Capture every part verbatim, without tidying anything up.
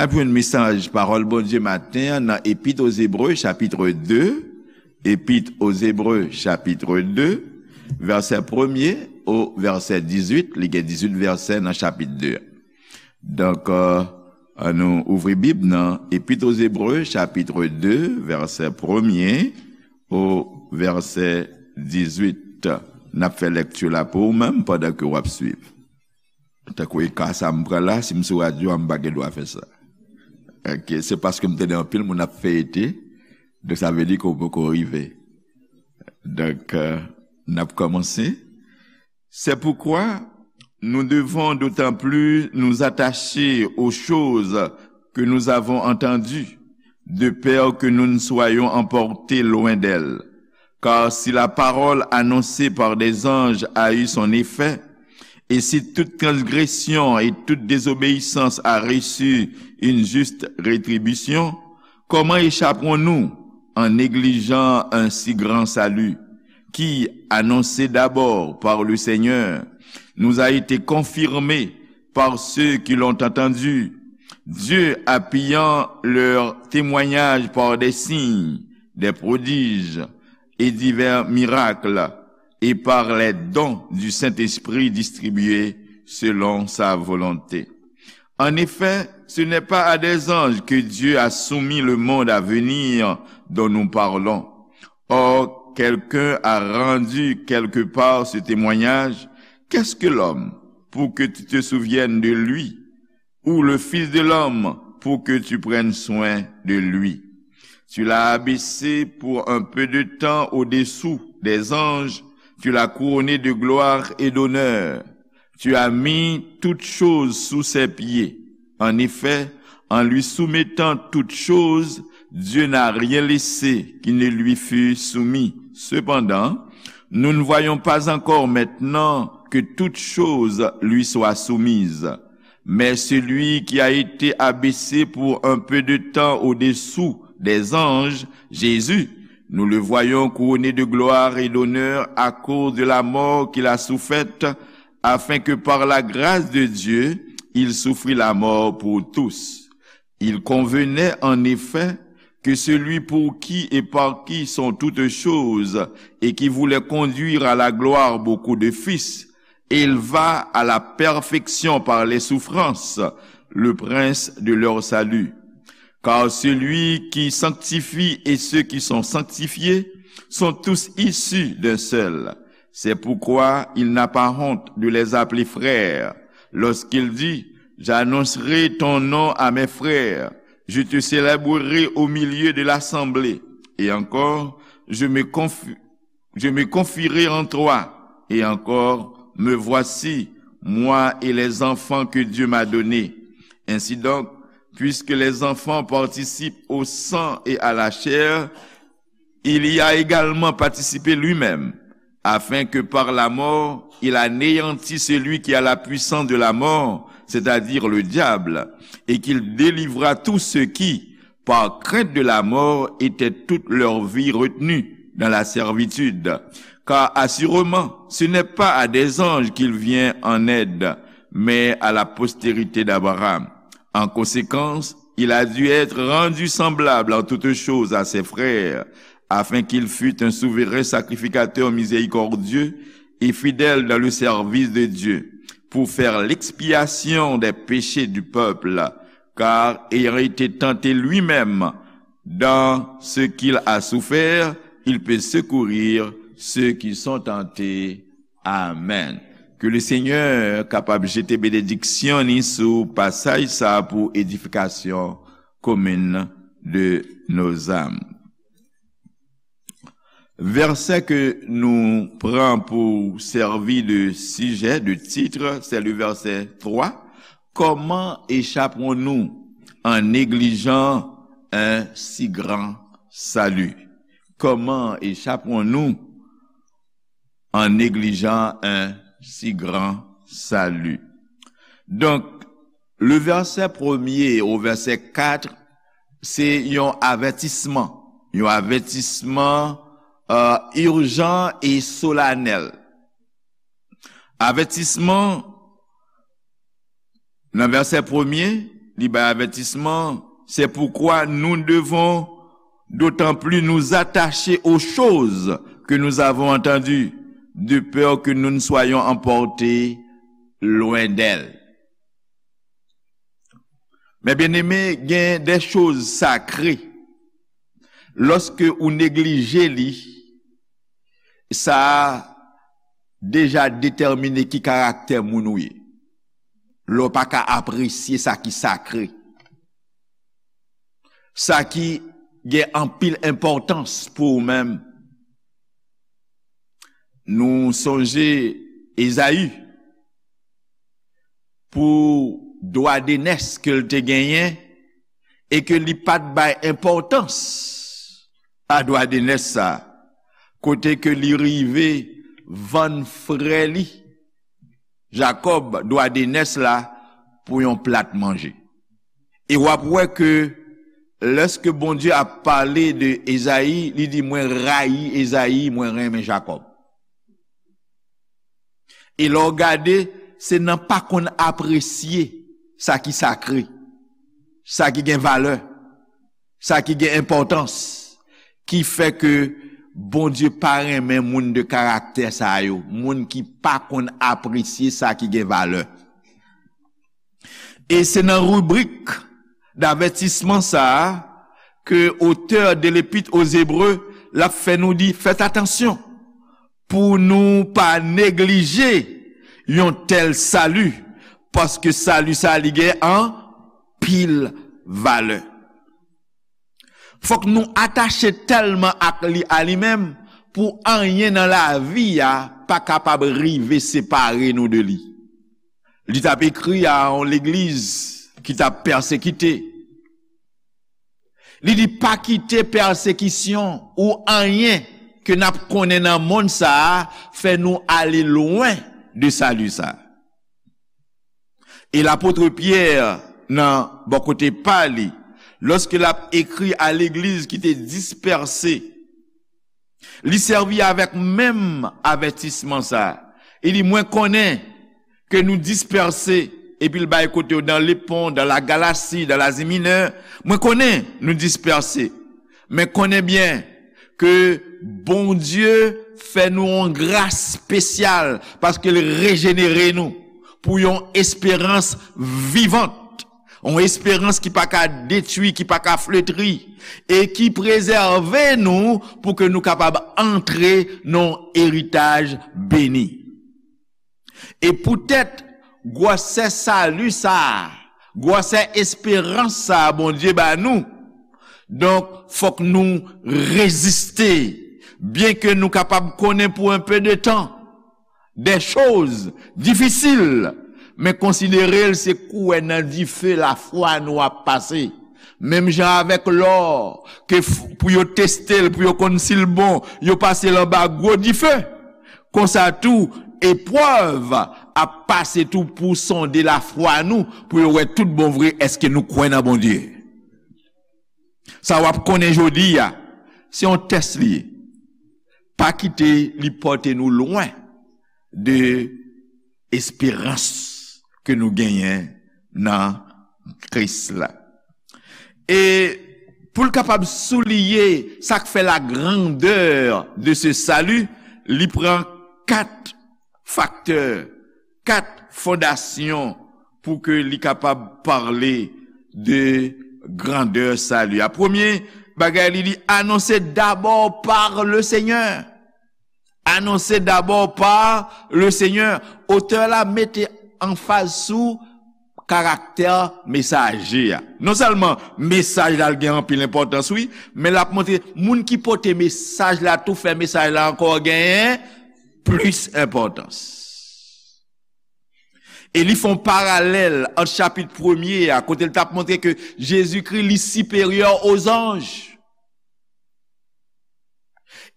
N ap jwenn mesaj pawòl Bondye maten an nan Epit o Zebre, chapit de. Epit o Zebre, chapit de, vèsè premye o vèsè dizuit. Li gen dizuit vèsè nan chapit de. Donk, euh, ann nou ouvri Bib nan Epit o Zebre, chapit de, vèsè premye o vèsè dizuit. N ap fè lekti la pou ou menm pandan ke w ap swiv. Tankou e ka sa m pran la, si m sou radyo a, m pa gen dwa fè sa. Ok, se paske m tande anpil moun ap feyete, donk sa vle di ke w poko rive. Donk, euh, n ap kòmanse. C'est pourquoi nous devons d'autant plus nous attacher aux choses que nous avons entendues, de peur que nous ne soyons emportés loin d'elles. Car si la parole annoncée par des anges a eu son effet, et si toute transgression et toute désobéissance a reçu une juste rétribution, comment échapperons-nous en négligeant un si grand salut, qui, annoncé d'abord par le Seigneur, nous a été confirmé par ceux qui l'ont entendu, Dieu appuyant leur témoignage par des signes, des prodiges et divers miracles, et par les dons du Saint-Esprit distribués selon sa volonté. En effet, ce n'est pas à des anges que Dieu a soumis le monde à venir dont nous parlons. Or, quelqu'un a rendu quelque part ce témoignage. Qu'est-ce que l'homme pour que tu te souviennes de lui, ou le Fils de l'homme pour que tu prennes soin de lui? Tu l'as abaissé pour un peu de temps au-dessous des anges, tu l'as couronné de gloire et d'honneur. Tu as mis toutes choses sous ses pieds. En effet, en lui soumettant toutes choses, Dieu n'a rien laissé qui ne lui fût soumis. Cependant, nous ne voyons pas encore maintenant que toutes choses lui soient soumises. Mais celui qui a été abaissé pour un peu de temps au-dessous des anges, Jésus, nous le voyons couronné de gloire et d'honneur à cause de la mort qu'il a soufferte, afin que par la grâce de Dieu, il souffrit la mort pour tous. Il convenait en effet que celui pour qui et par qui sont toutes choses et qui voulait conduire à la gloire beaucoup de fils, élevât à la perfection par les souffrances le prince de leur salut. Car celui qui sanctifie et ceux qui sont sanctifiés sont tous issus d'un seul. C'est pourquoi il n'a pas honte de les appeler frères, lorsqu'il dit, j'annoncerai ton nom à mes frères, je te célébrerai au milieu de l'assemblée. Et encore, je me conf-, je me confierai en toi. Et encore, me voici, moi et les enfants que Dieu m'a donnés. Ainsi donc, puisque les enfants participent au sang et à la chair, il y a également participé lui-même, afin que par la mort, il anéantît celui qui a la puissance de la mort, c'est-à-dire le diable, et qu'il délivrât tous ceux qui, par crainte de la mort, étaient toute leur vie retenus dans la servitude. Car assurément, ce n'est pas à des anges qu'il vient en aide, mais à la postérité d'Abraham. En conséquence, il a dû être rendu semblable en toutes choses à ses frères, afin qu'il fût un souverain sacrificateur miséricordieux et fidèle dans le service de Dieu, pour faire l'expiation des péchés du peuple, car ayant été tenté lui-même dans ce qu'il a souffert, il peut secourir ceux qui sont tentés. Amen. Ke le Senyè kapab jete benediksyon ni sou pasaj sa pou edifikasyon komin de nos âmes. Vèsè ke nou pran pou sèvi de sijè, de titre, c'est le verset trois. Comment échapperons-nous en négligeant un si grand salut? Comment échapperons-nous en négligeant un si grand salut? Donk, le vèsè premye o vèsè kat, se yon avètisman. Yon avètisman, euh, ijan e solanèl. Avètisman nan vèsè premye, Li bay avètisman, c'est pourquoi nous devons d'autant plus nous attacher aux choses que nous avons entendues, de peur que nous ne soyons emportés loin d'elles. Men byeneme, gen de choz sakre. Lòske ou neglije li, sa a deja detèmine ki karaktè moun ou ye. Lè w pa ka apresye sa ki sakre, sa ki gen anpil enpòtans pou ou menm. Nou sonje Ezayi pou dwa de nès ke l te genyen e ke li pa t bay enpòtans a dwa de nès sa, kote ke li rive vann frè li Jakòb dwa de nès la pou yon plat manje. E w ap wè ke lèske Bondye ap pale de Ezayi, li di, "Mwen rayi Ezayi, mwen renmen Jakòb." E lè w gade, se nan pa konn apresye sa ki sakre, sa ki gen valè, sa ki gen enpòtans, ki fè ke Bondye pa renmen moun de karaktè sa yo, moun ki pa konn apresye sa ki gen valè. E se nan ribrik davètisman sa a ke otè de l'Épître aux Hébreux l ap fè nou di, fèt atansyon pou nou pa neglije yon tèl sali, paske sali sa a li gen anpil valè. Fòk nou atache tèlman ak li, a li menm, pou anyen nan lavi a pa kapab rive separe nou de li. Li t ap ekri a yon legliz ki t ap pèsekite. Li di, "Pa kite pèsekisyon ou anyen ke n ap konnen nan monn sa a fè nou ale lwen de sali sa a." E lapot Pyè, nan bò kote pa li, lòske l ap ekri a legliz ki te dispèse, li sèvi avèk menm avètisman sa a. Li di, "Mwen konnen ke nou dispèse," epi l bay kote yo, "dans le pont, dans la Galatie, dans l'Asie Mineure. Mwen konnen nou dispèse. Men konnen byen ke Bondye fè nou yon gras espesyal paske l rejenere nou pou yon esperans vivant, yon esperans ki pa ka detwi, ki pa ka fletri, e ki prezève nou pou ke nou kapab antre nan yon eritaj beni." E poutèt gwosè sali sa a, gwosè esperans sa a Bondye ba nou, donk, fòk nou reziste, byenke nou kapab konnen pou un peu de temps des choses difficiles, men konsidere l se kouwè nan dife lafwa nou ap pase. Menm jan avèk lò, ke f-, pou yo teste l, pou yo konn si l bon, yo pase l anba gwo dife. Konsa tou, eprèv ap pase tou pou sonde lafwa nou, pou yo wè tout bon vre, èske nou kwè nan Bondye. Sa w ap konnen jodi a, se yon tès li ye. Pa kite li pote nou lwen de esperans ke nou genyen nan Kris la. E pou l kapab souliye sa k fè la grandeur de ce salut, li pran kat faktè, kat fondasyon pou ke li kapab pale de grandè sali a. Premye bagay, li di, anonse dabò pa le Senyè. Anonse dabò pa le Senyè. Otè la mete anfaz sou karaktè mesaje a. Non sèlman mesaj la gen anpil enpòtans, wi, men l ap montre moun ki pote mesaj la tou fè mesaj la ankò genyen plis enpòtans. E li fè yon paralèl ant chapit premye a, kote l t ap montre ke Jezikri, li siperyè o zanj.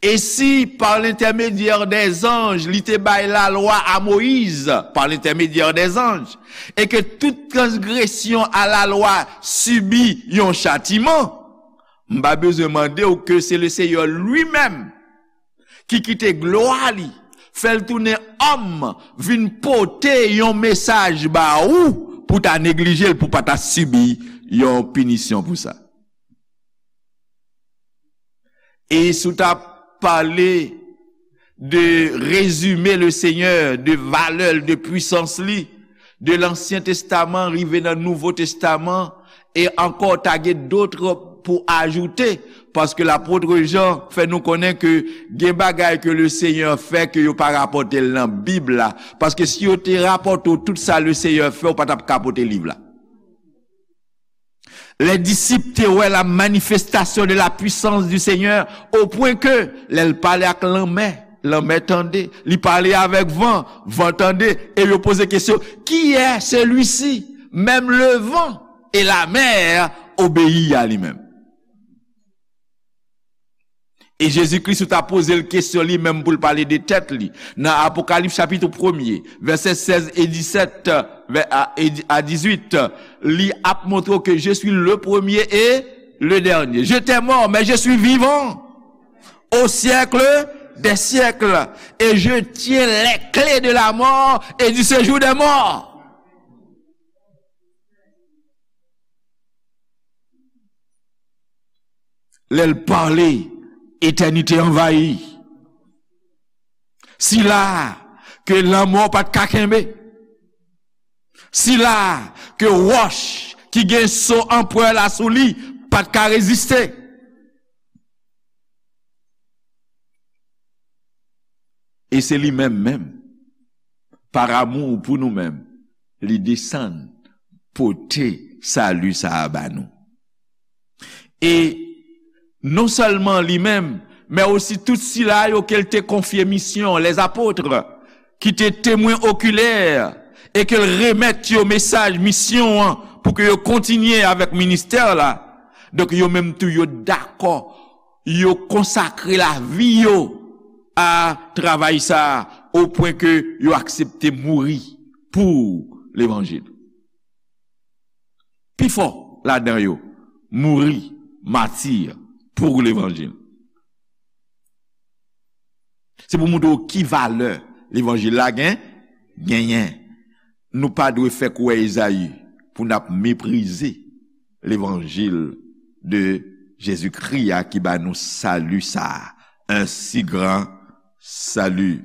E si, par l'intermédiaire des anges, li te bay lalwa a Moyiz, par l'intermédiaire des anges, e ke tout transgresyon a lalwa sibi yon chatiman, m pa bezwen mande w ke se le Seyè li menm ki kite glwa li, fè l tounen òm, vin pote yon mesaj ba ou, pou ta neglije l, pou pa ta sibi yon pinisyon pou sa. E si w ta pale de rezime le Senyè, de valè l, de pwisans li, de Lansyen Testaman rive nan Nouvo Testaman, e ankò ta gen dòt pou ajoute, paske lapot Jan fè nou konnen ke gen bagay ke le Senyè fè ke yo pa rapòte l nan Bib la, paske si yo te rapòte w tout sa le Senyè fè, ou pa t ap ka pote liv la. Les disciples te wè la manifestation de la puissance du Seigneur, au point que lè l pale ak lanmè, lanmè tande, li pale avèk van, van tande, e yo poze kesyon, qui est celui-ci? Même le vent et la mer obéit à lui-même. E Jezi Kris ou ta poze l kesyon li menm pou l pale de tèt li. Nan Apokalips chapit premye, vèsè sèz e disèt, vè- a, e di- a dizuit, li ap montre w ke je suis le premier et le dernier. J'étais mort, mais je suis vivant au siècle des siècles, et je tiens les clés de la mort et du séjour des morts. Lè l pale, etènite anvayi. Sila ke lanmò pa t ka kenbe. Sila ke wòch ki gen so anprè la sou li pa t ka reziste. E se li menm menm, pa amou pou nou menm, li desann pote sali sa a ba nou. E non sèlman li menm, men osi tout sila yo ke l te konfye misyon, les apôtres, ki te temwen okilè, e ke l remèt yo mesaj misyon an pou ke yo kontinye avèk ministè la. Donk, yo menm tou, yo dakò, yo konsakre lavi yo a travay sa a, o pwen ke yo aksepte mouri pou levanjil. Pifò ladan yo mouri mati pou levanjil. Se pou montre w ki valè levanjil la gen, genyen. Nou pa dwe fè kwè Ezayi pou n ap meprize levanjil de Jezikri a ki ba nou sali sa a, un si grand salut.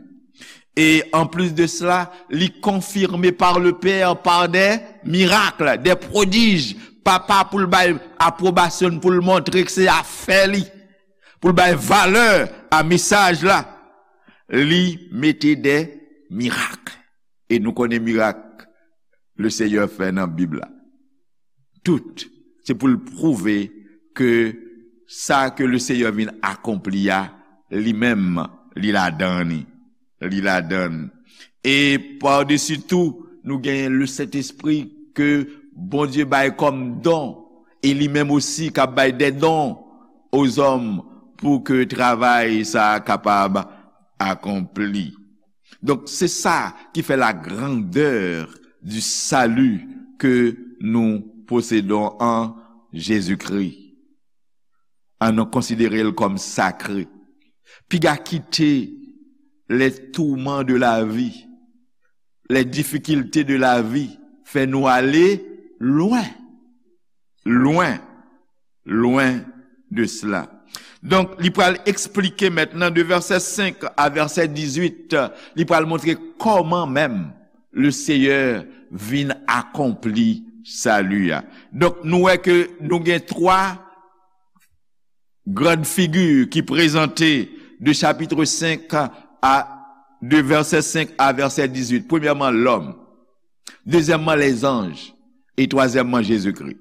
E an plis de sela, li konfime par le Père, par des miracles, des prodiges. Papa pou l bay apwobasyon l, pou l montre ke se afè li, pou l bay valè a mesaj la, li mete de mirak. E nou konnen mirak Lesenyè fè nan Bib la. Tout, se pou l pwouve ke sa ke Lesenyè vin akonpli a, li menm, li ladan li. Li ladan l. E padesi tou, nou genyen Lesentespri ke Bondye bay kòm don, e li menm osi k ap bay de don ozòm pou ke travay sa a kapab akonpli. Donk, se sa ki fè la grandeur du salut que nous possédons en Jésus-Christ. Ann nou konsidere l kòm sakre. Piga kite les tourments de la vie, les difficultés de la vie fè nou ale lwen, lwen, lwen de sela. Donk, li pral eksplike mentnan de vèsè senk a vèsè dizuit, li pral montre kòman menm Lesenyè vin akonpli sali a. Donk, nou wè ke nou gen twa grann figi ki prezante de chapitre senk a, de vèsè senk a vèsè dizuit. Premyèman, lòm. Dezyèmman, lèzanj. E twazyèmman, Jezikri.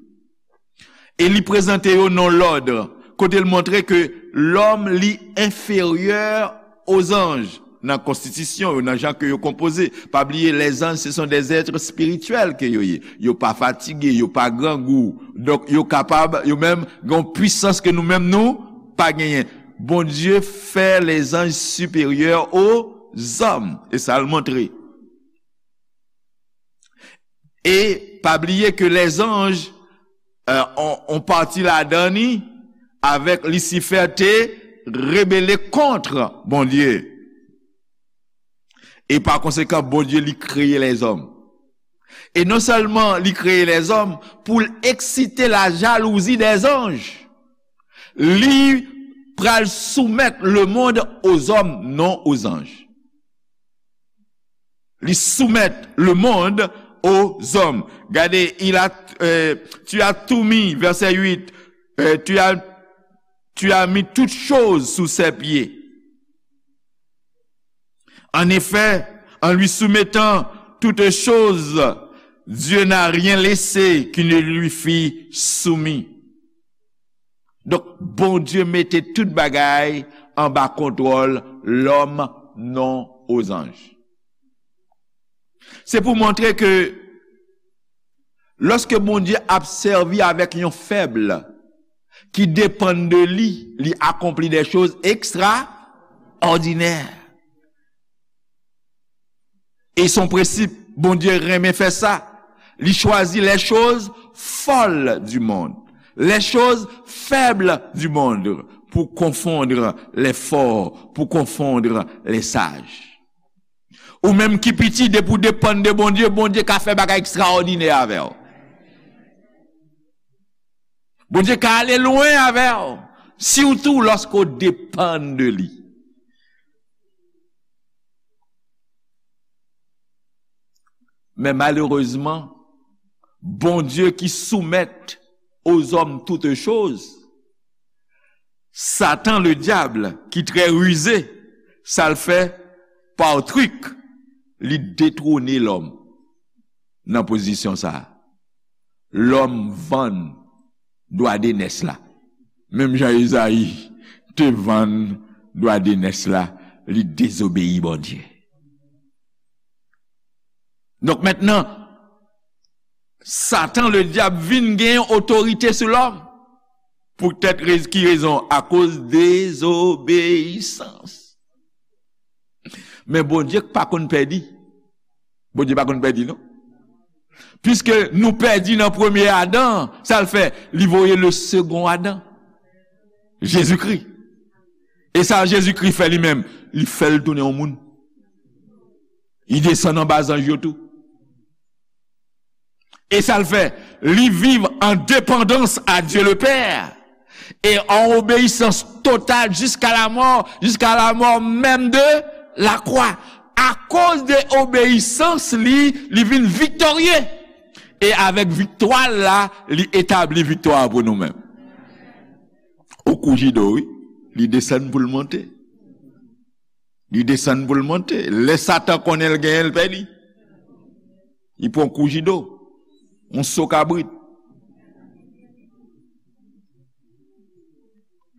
E li prezante yo nan lòd, kote l montre ke lòm li enferyè ozanj nan konstitisyon yo, nan jan ke yo konpoze. Pa bliye, lèzanj, se sont des êtres spirituels ke yo ye. Yo pa fatige, yo pa grangou. Donk, yo kapab, yo menm, gen yon pwisans ke nou menm nou pa genyen. Bondye fè lèzanj siperyè ozòm. E sa l montre. E pa bliye ke lèzanj, euh, on, on pati ladan li, avèk Lisifè te rebele kont Bondye. E pa konsekan, Bondye li kreye lèzòm. E non sèlman li kreye lèzòm pou l eksite la jalouzi dèzanj, li pral soumèt lemonn ozòm, non ozanj. Li soumèt lemonn ozòm. Gade, il a, euh, tu as tout mis, verset huit, euh, tu as, tu as mis toutes choses sous ses pieds. En effet, en lui soumettant toutes choses, Dieu n'a rien laissé qui ne lui fût soumis. Donk, Bondye mete tout bagay anba kontwòl lòm, non ozanj. Se pou montre ke lòske Bondye ap sèvi avèk yon fèb ki depann de li, li akonpli de choz ekstraòdinè. E son prensip, Bondye renmen fè sa. Li chwazi les choses folles du monde, les choses faibles du monde, pour confondre les forts, pour confondre les sages. Ou menm ki piti, depi w depann de Bondye, Bondye ka fè bagay ekstraòdinè avè w. Bondye ka ale lwen avè w, sitou lòske w depann de li. Men malerezman, Bondye ki soumèt ozòm toutes choses, Satan, le diable, ki trè rize, sa l fè, pa trik, li detwone lòm nan pozisyon sa a. Lòm vann dwa de nès la. Menm jan Ezayi te vann dwa de nès la, li dezobeyi Bondye. Donk, mentnan, Satan, le diab, vin gen otorite sou lòm. Poutèt rez-, ki rezon? Akoz dezobeyisans. Men Bondye pa konn pèdi. Bondye pa konn pèdi, non. Piske nou pèdi nan premye Adan, sa l fè? Li voye le second Adam, Jezikri. E sa Jezikri fè li menm? Li fè l tounen yon moun. Li desann anba zanj yo tou. E sa l fè? Li viv an depandans a Dye le Pè e an obeyisans total jiska lamò, jiska lamò menm de lakwa. Akoz de obeyisans li, li vin viktorye. E avèk viktwa l la, li etabli viktwa pou nou menm. Ou kou jido, wi. Li desann pou l monte. Li desann pou l monte. Lè Satan konnen l genyen, l pèdi. Li pran kou jido. Yon so kabrit.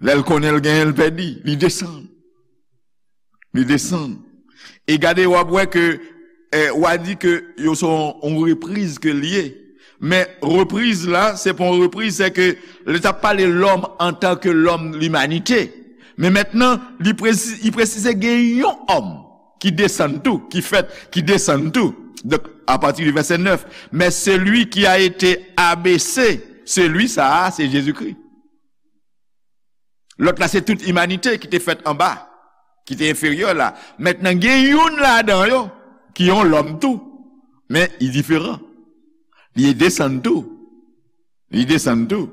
Lè l konnen l genyen, l pèdi. Li desann. Li desann. E gade, w ap wè ke, eh, w a di ke yo se yon, yon repriz ke l ye. Men repriz la, se pa yon repriz, se ke lè l t ap pale lòm antanke lòm, limanite. Men mentnan, li presi-, li presize gen yon òm ki desann tou, ki fèt, ki desann tou. Donk, apati de vèsè nèf, mais celui qui a été abaissé, celui sa a, se Jezikri. Lòt la, se tout imanite ki te fèt anba, ki te enferyè la. Mentnan, gen youn ladan yo ki yon lòm tou, men li diferan. Li desann tou. Li desann tou.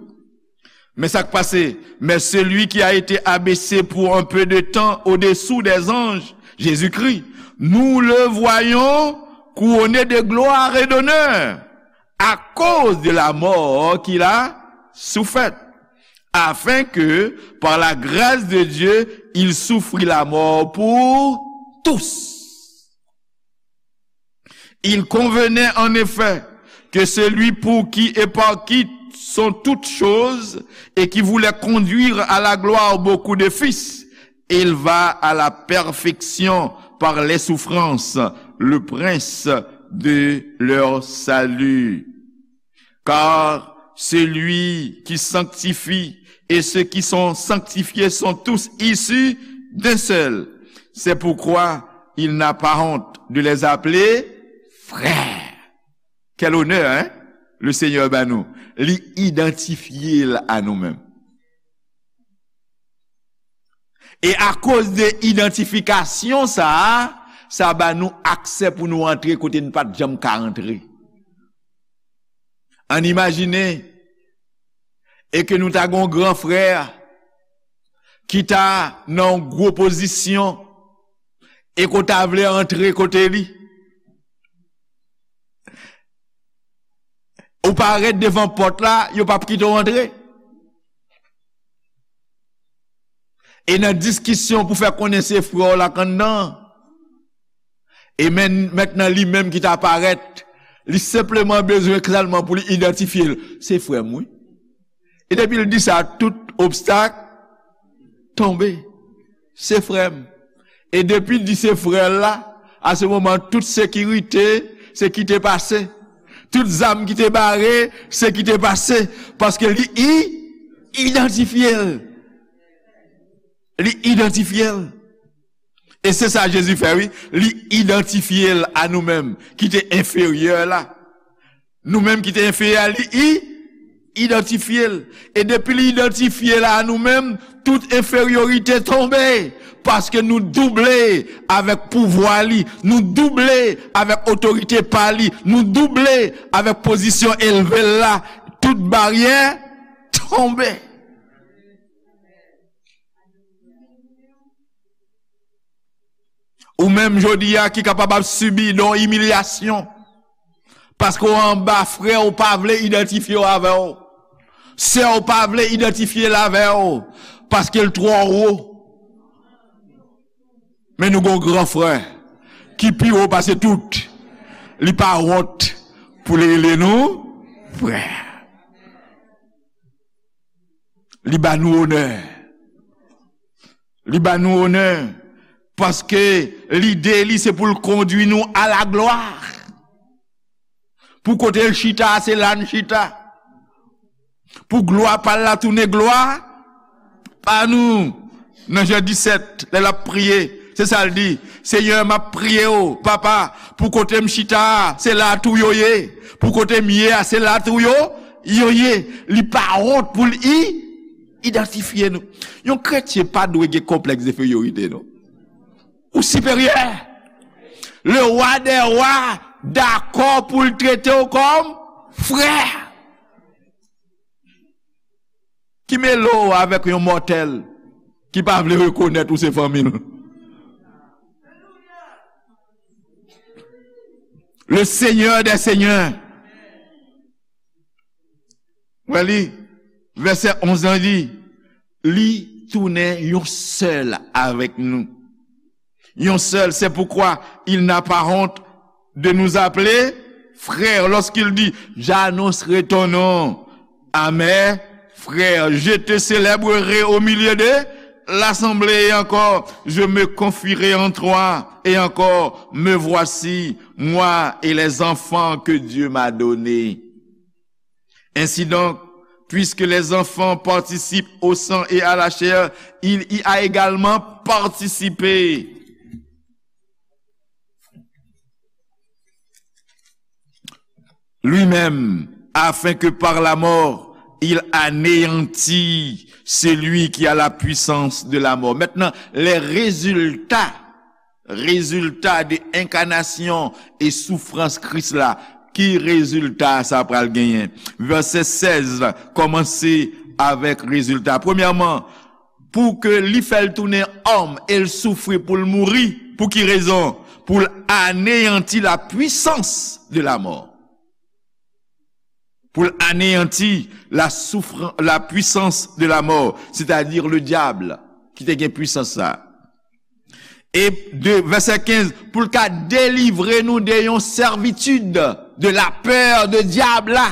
Men sa k pase, mais celui qui a été abaissé pour un peu de temps au-dessous des anges, Jésus-Christ, nous le voyons couronné de gloire et d'honneur à cause de la mort qu'il a soufferte, afin que, par la grâce de Dieu, il souffrit la mort pour tous. Il convenait en effet que celui pour qui et par qui sont toutes choses et qui voulait conduire à la gloire beaucoup de fils, éleva à la perfection par les souffrances le prince de leur salut. Car celui qui sanctifie et ceux qui sont sanctifiés sont tous issus d'un seul. C'est pourquoi il n'a pas honte de les appeler frères. Quel honneur, hein? Le Seigneur ba nou. Li idantifye l a nou menm. E akoz de idantifikasyon sa a, sa ba nou aksè pou nou antre kote n pa t janm ka antre. Ann imajine e ke nou ta gen yon gran frè ki ta nan yon gwo pozisyon e ke w ta vle antre kote li. Ou parèt devan pòt la, yo p ap kite w antre. E nan diskisyon pou fè konnen se frè w la k anndan an. E men, mentnan li menm ki ta parèt, li senpleman bezwen sèlman pou li idantifye l. Se frè m, wi. E depi l di sa, tout obstak tonbe. Se frè m. E depi l di se frè l la, a se moman, tout sekirite, se kite pase. Tout zam ki te bare, se kite pase. Paske li i-, idantifye l. Li idantifye l. E se sa Jezi fè, wi. Li idantifye l a nou menm, ki te enferyè la. Nou menm ki te enferyè a, li i-, idantifye l. E depi li idantifye l a nou menm, tout enferyorite tonbe. Paske nou double avèk pouvwa li, nou double avèk otorite pa li, nou double avèk pozisyon elve l la. Tout baryè tonbe. Ou menm jodi a ki kapab ap sibi de yon imilyasyon. Paske w anba frè w pa vle idantifye w avè w. Sè w pa vle idantifye l avè w. Paske l twò wo. Men nou gen yon gran frè ki pi wo pase tout. Li pa wont pou li rele nou frè. Li ba nou onè. Li ba nou onè. Paske lide li se pou l kondwi nou a la glwa. Pou kote l chita, se la n chita. Pou glwa pa l la tounen glwa pa nou. Nan Jan disèt, lè l ap priye, se sa l di, Senyè, m ap priye w, Papa, pou kote m chita a, se la a tou yo ye. Pou kote m ye a, se la a tou yo, yo ye. Li pa wont pou l i-, idantifye nou. Yon kretyen pa dwe gen konplèks de enferyorite, non. Ou siperyè. Le wa dè wa dakò pou l trete w kòm frè. Ki mele w avèk yon mòtèl ki pa vle rekonèt ou se fanmi l? Le Seigneur des Seigneurs. Wè li, vèsè onz lan di, li tounen yon sèl avèk nou. Yon sèl, c'est pourquoi il n'a pas honte de nous appeler frères lorsqu'il dit, j'annoncerai ton nom à mes frères, je te célébrerai au milieu de l'assemblée, et encore, je me confierai en toi, et encore, me voici, moi et les enfants que Dieu m'a donnés. Ainsi donc, puisque les enfants participent au sang et à la chair, il y a également participé lui-même, afin que par la mort, il anéantît celui qui a la puissance de la mort. Maintenant, les résultats rezilta de enkanasyon e soufrans Kris la. Ki rezilta sa pral genyen? Vèsè sèz la kòmanse avèk rezilta. Premyèman, pou ke li fè l tounen òm e l soufri pou l mouri. Pou ki rezon? Pou l aneyanti la puissance de la mort. Pou l aneyanti la soufran-, la puissance de la mort, c'est-à-dire le diable, ki te gen pwisans sa. E de, vèsè kenz, pou l ka delivre nou de yon sèvitid, de la pè de dyab la.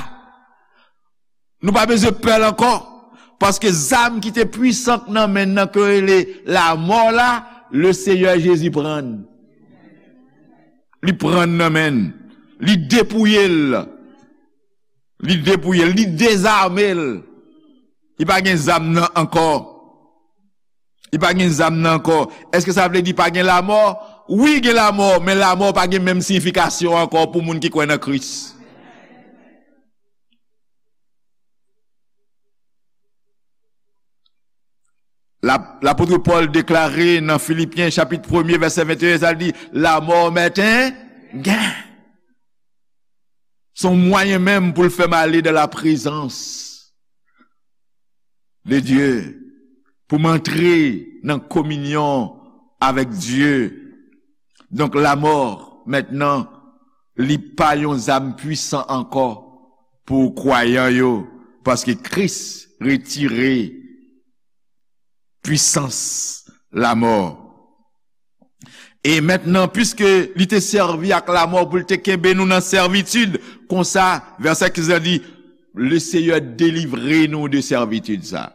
Nou pa bezwen pè l ankò, paske zam ki te pwisan nan men n nan ke rele lamò la, le Seyè Jezi pran l. Li pran l nan men n. Li depouye l. Li depouye l, li dezame l. Li pa gen zam nan ankò. Li pa gen zam nan ankò. Èske sa vle di pa gen lamò? Wi, gen lamò, men lamò pa gen menm siyifikasyon ankò pou moun ki kwè nan Kris. La, lapot Pòl deklare nan Filipyen chapit premye vèsè venteyen, sa l di, lamò mèt en gen. Se yon mwayen menm pou l fè m ale dans la présence de Dieu, pou m antre nan kominyon avèk Dye. Donk, lamò, mentnan, li pa yon zam pwisan ankò pou kwayan yo, paske Kris retire pwisans lamò. E mentnan, piske li te sèvi ak lamò pou l te kenbe nou nan sèvitid, konsa, vèsè kenz la di, le Seyè delivre nou de sèvitid sa.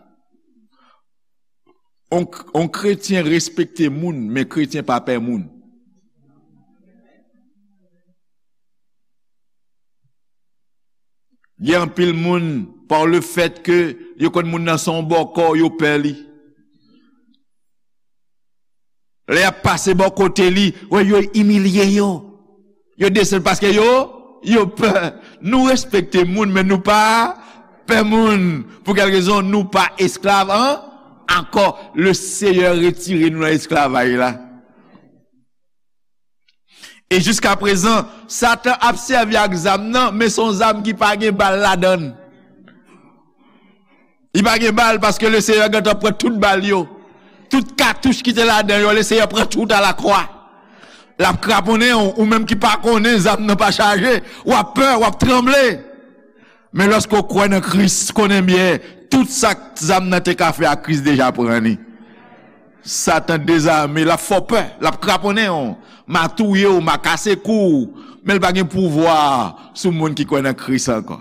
On, on kretyen respekte moun, men kretyen pa pè moun. Gen anpil moun, par le fait que yo konn moun nan se yon bòkò, yo pè li. Lè y ap pase bò kote li, wè, yo imilye yo. Yo desann paske yo, yo pè. Nou respekte moun, men nou pa pè moun. Pou kèl rezon? Nou pa esklav an, ankò. Le Seyè retire nou nan esklavaj la. E jiska prezan, Satan ap sèvi ak zam nan, men se yon zam ki pa gen bal ladan l. Li pa gen bal paske le Seyè gentan pran tout bal yo. Tout katouch ki te ladan yo, le Seyè pran tout alakwa. L ap kraponnen w, ou menm ki pa konnen zam nan pa chaje, w ap pè, w ap tranble. Men lòske w kwè nan Kris, konnen byen, tout sa zam nan te ka fè a, Kris deja pran li. Satan dezame, l ap fè w pè, l ap kraponnen w, m a touye w, m a kase kou w, men l pa gen pouvwa sou moun ki kwè nan Kris ankò.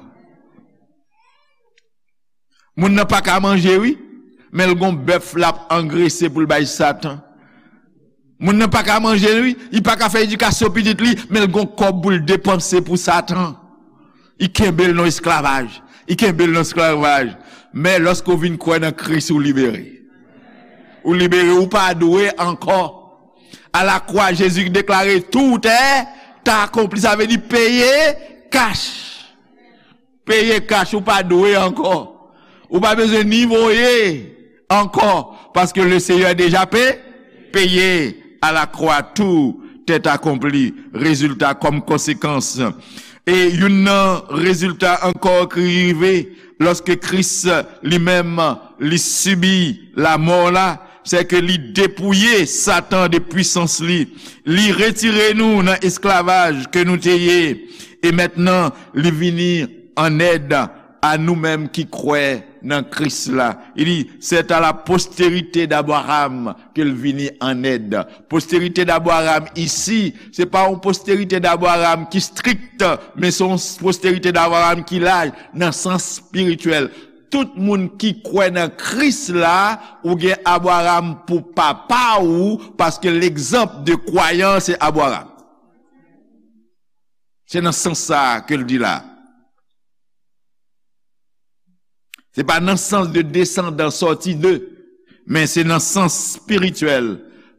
Moun nan pa ka manje, wi, men l gon bèf l ap angrese pou l bay Satan. Moun nan pa ka manje, wi, li pa ka fè edikasyon pitit li, men l gon kòb pou l depanse pou Satan. Li kenbe l nan esklavaj. Li kenbe l nan esklavaj. Men lòske w vin kwè nan Kris, ou libere. Ou libere, ou pa dwe ankò. Alakwa, Jezi deklare, tout est accompli. Sa vle di peye kach. Peye kach, ou pa dwe ankò. Ou pa bezwen ni voye ankò, paske le Seyè deja pe, peye à la croix, tout est accompli. Rezilta, kòm konsekans. E youn nan rezilta ankò ki rive lòske Kris li menm li sibi lamò la, se ke li depouye Satan de pwisans li. Li retire nou nan esklavaj ke nou te ye. E mentnan, li vini an èd a nou menm ki kwè nan Kris la. Li di, c'est à la postérité d'Abraham ke l vini an èd. Postérité d'Abraham isi, se pa yon postérité d'Abraham ki strikt, men se yon postérité d'Abraham ki laj nan sans espirityèl. Tout moun ki kwè nan Kris la, ou gen Abraham pou papa ou, paske l'exemple de croyant, se Abraham. Se nan sans sa a ke l di la. Se pa nan sans de descendant sorti de, men se nan sans espirityèl,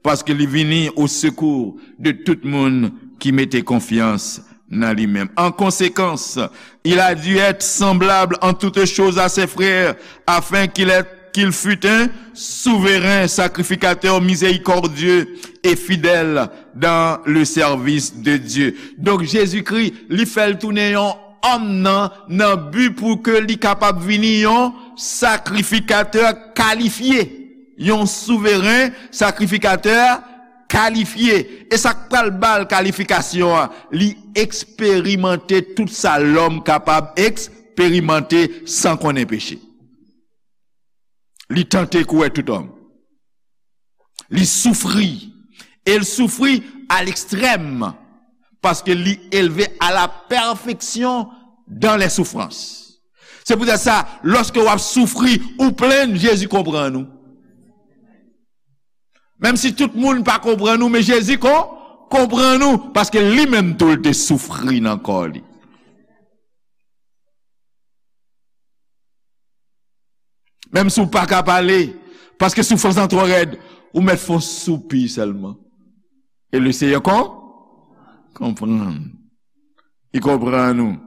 paske li vini au secours de tout moun ki mete konfyans nan li menm. En conséquence, il a dû être semblable en toutes choses à ses frères, afin qu'il ait, qu'il fût un souverain sacrificateur miséricordieux et fidèle dans le service de Dieu. Donk, Jezikri, li fè l tounen yon òm nan, nan bi pou ke li kapab vini yon sakrifikatè kalifye, yon souveren sakrifikatè kalifye. E sa k pral ba l kalifikasyon an? Li eksperimante tout sa lòm kapab eksperimante san konnen peche. Li tante kouwè tout òm. Li soufri. E l soufri à l'extrême. Paske li elve à la perfection dans les souffrances. Se poutèt sa, lòske w ap soufri, ou plenn, Jezi konprann ou. Menm si tout moun pa konprann ou, men Jezi kon, konprann ou, paske li menm tou l te soufri nan kò li. Menm si w pa ka pale, paske soufrans lan twò rèd, ou mèt fè yon soupi sèlman. E le Seyè kon, konprann. Li konprann ou.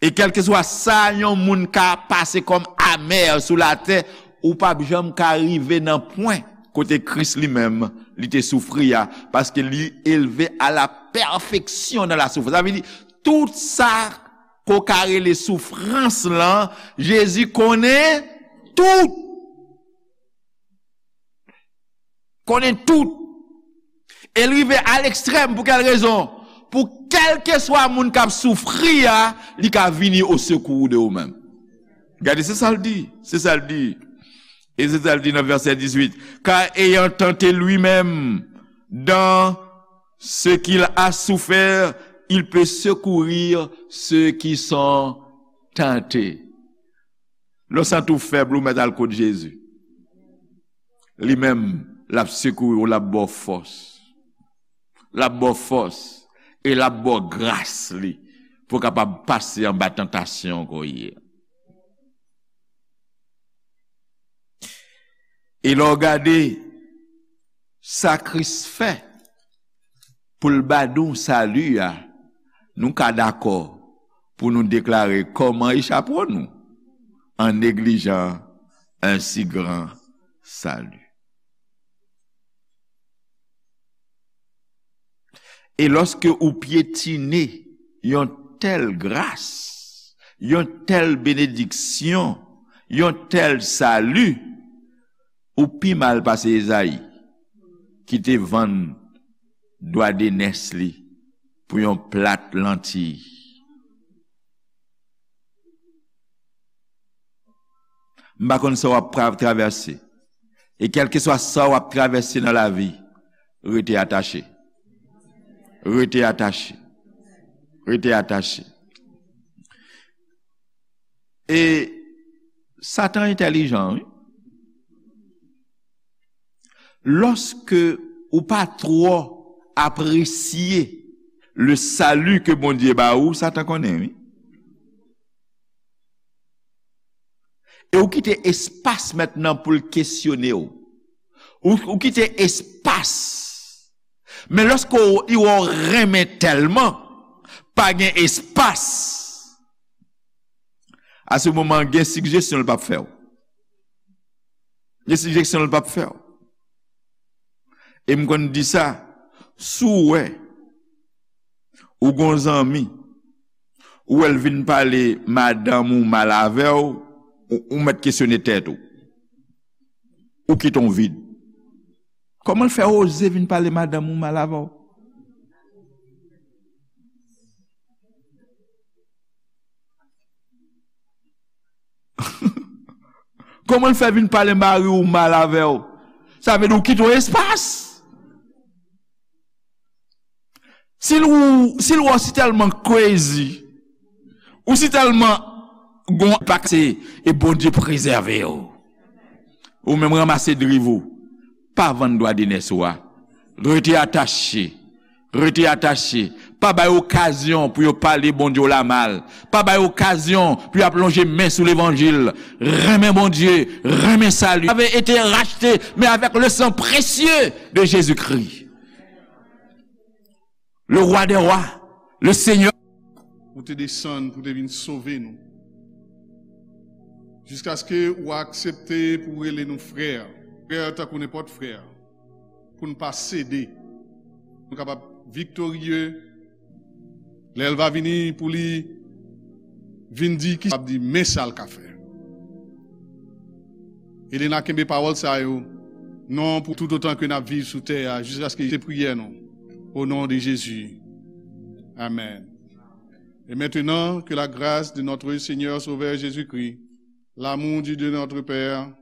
E kèlkeswa sa yon moun ka pase kòm amè sou latè, ou p ap janm ka rive nan pwen kote Kris li menm, li te soufri a, paske li elve à la perfection dans la souffrance. Sa vle di, tout sa ke w ka rele soufrans lan, Jezi konnen tout. Konnen tout. E l rive a lekstrèm. Pou kèl rezon? Pou kèlkeswa moun k ap soufri a, li ka vini au secours de ou menm. Gade, se sa l di. Se sa l di. E se sa l di nan vèsè dizuit. Car ayant tenté lui-même dans ce qu'il a souffert, il peut secourir ceux qui sont tentés. Lè w santi w fèb, ou mèt al kot Jezi. Li menm, l ap sekouri w, l ap ba w fòs. L ap ba w fòs. E l ap ba w gras li pou w kapab pase anba tantasyon ke w ye a. E lè w gade sa Kris fè pou l ba nou sali a, nou ka dakò pou nou deklare: comment échapperons-nous en négligeant un si grand salut? E lòske ou pyetine yon tèl gras, yon tèl benediksyon, yon tèl sali, ou pi mal pase Ezayi, ki te vann dwa de nès li pou yon plat lantiy. M pa konn sa w ap pra-, travèse. E kèlkeswa sa w ap travèse nan lavi, rete atache. Rete atache. Rete atache. E Satan entèlijan, wi. Lòske ou pa twò apresye le salut ke Bondye ba ou, Satan konnen, wi. E ou kite espas mentnan pou l kesyone w. Ou, ou kite espas. Men lòske w, w renmen tèlman, pa gen espas. A se moman, gen sigjesyon l p ap fè w. Gen sigjesyon l p ap fè w. E m konn di sa, si w wè ou gon zanmi, ou wè l vin pale madanm ou mal avè w, ou, ou mèt kesyone tèt ou. Ou kite w vid. Kòman l fè oze vin pale madanm ou mal avè w? Kòman l fè vin pale mari w mal avè w? Sa vle di ou kite w espas. Si l ou, si l wè w si tèlman crazy, ou si tèlman gon pakse, e Bondye prezève w. Ou menm ranmase driv ou. Pa vann dwa de nès ou a. Rete atache. Rete atache. Pa bay okazyon pou yo pale Bondye w la mal. Pa bay okazyon pou y ap lonje men sou levanjil. Renmen Bondye, renmen sali. Vous avez été rachetés, mais avec le sang précieux de Jésus-Christ. Le roi des rois, le Seigneur. Ou te desann pou te vin sove nou. Jiskaske ou aksepte pou rele nou frè. Frè tankou nenpòt frè. Pou n pa sede. Nou kapab viktorye. Lè l va vini pou li vin di ki, ap di, men sa l ka fè. Elena, kenbe pawòl sa yo, non, pou tout otan ke n ap viv sou tè a, jiskaske se priyè nou. Au nom de Jésus. Amen. Et maintenant, que la grâce de notre Seigneur Sauveur Jésus-Christ, l'amour du Dieu notre Père,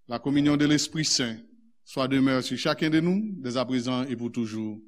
la communion de l'Esprit Saint, soit demeure sur chacun de nous, dès à présent et pour toujours.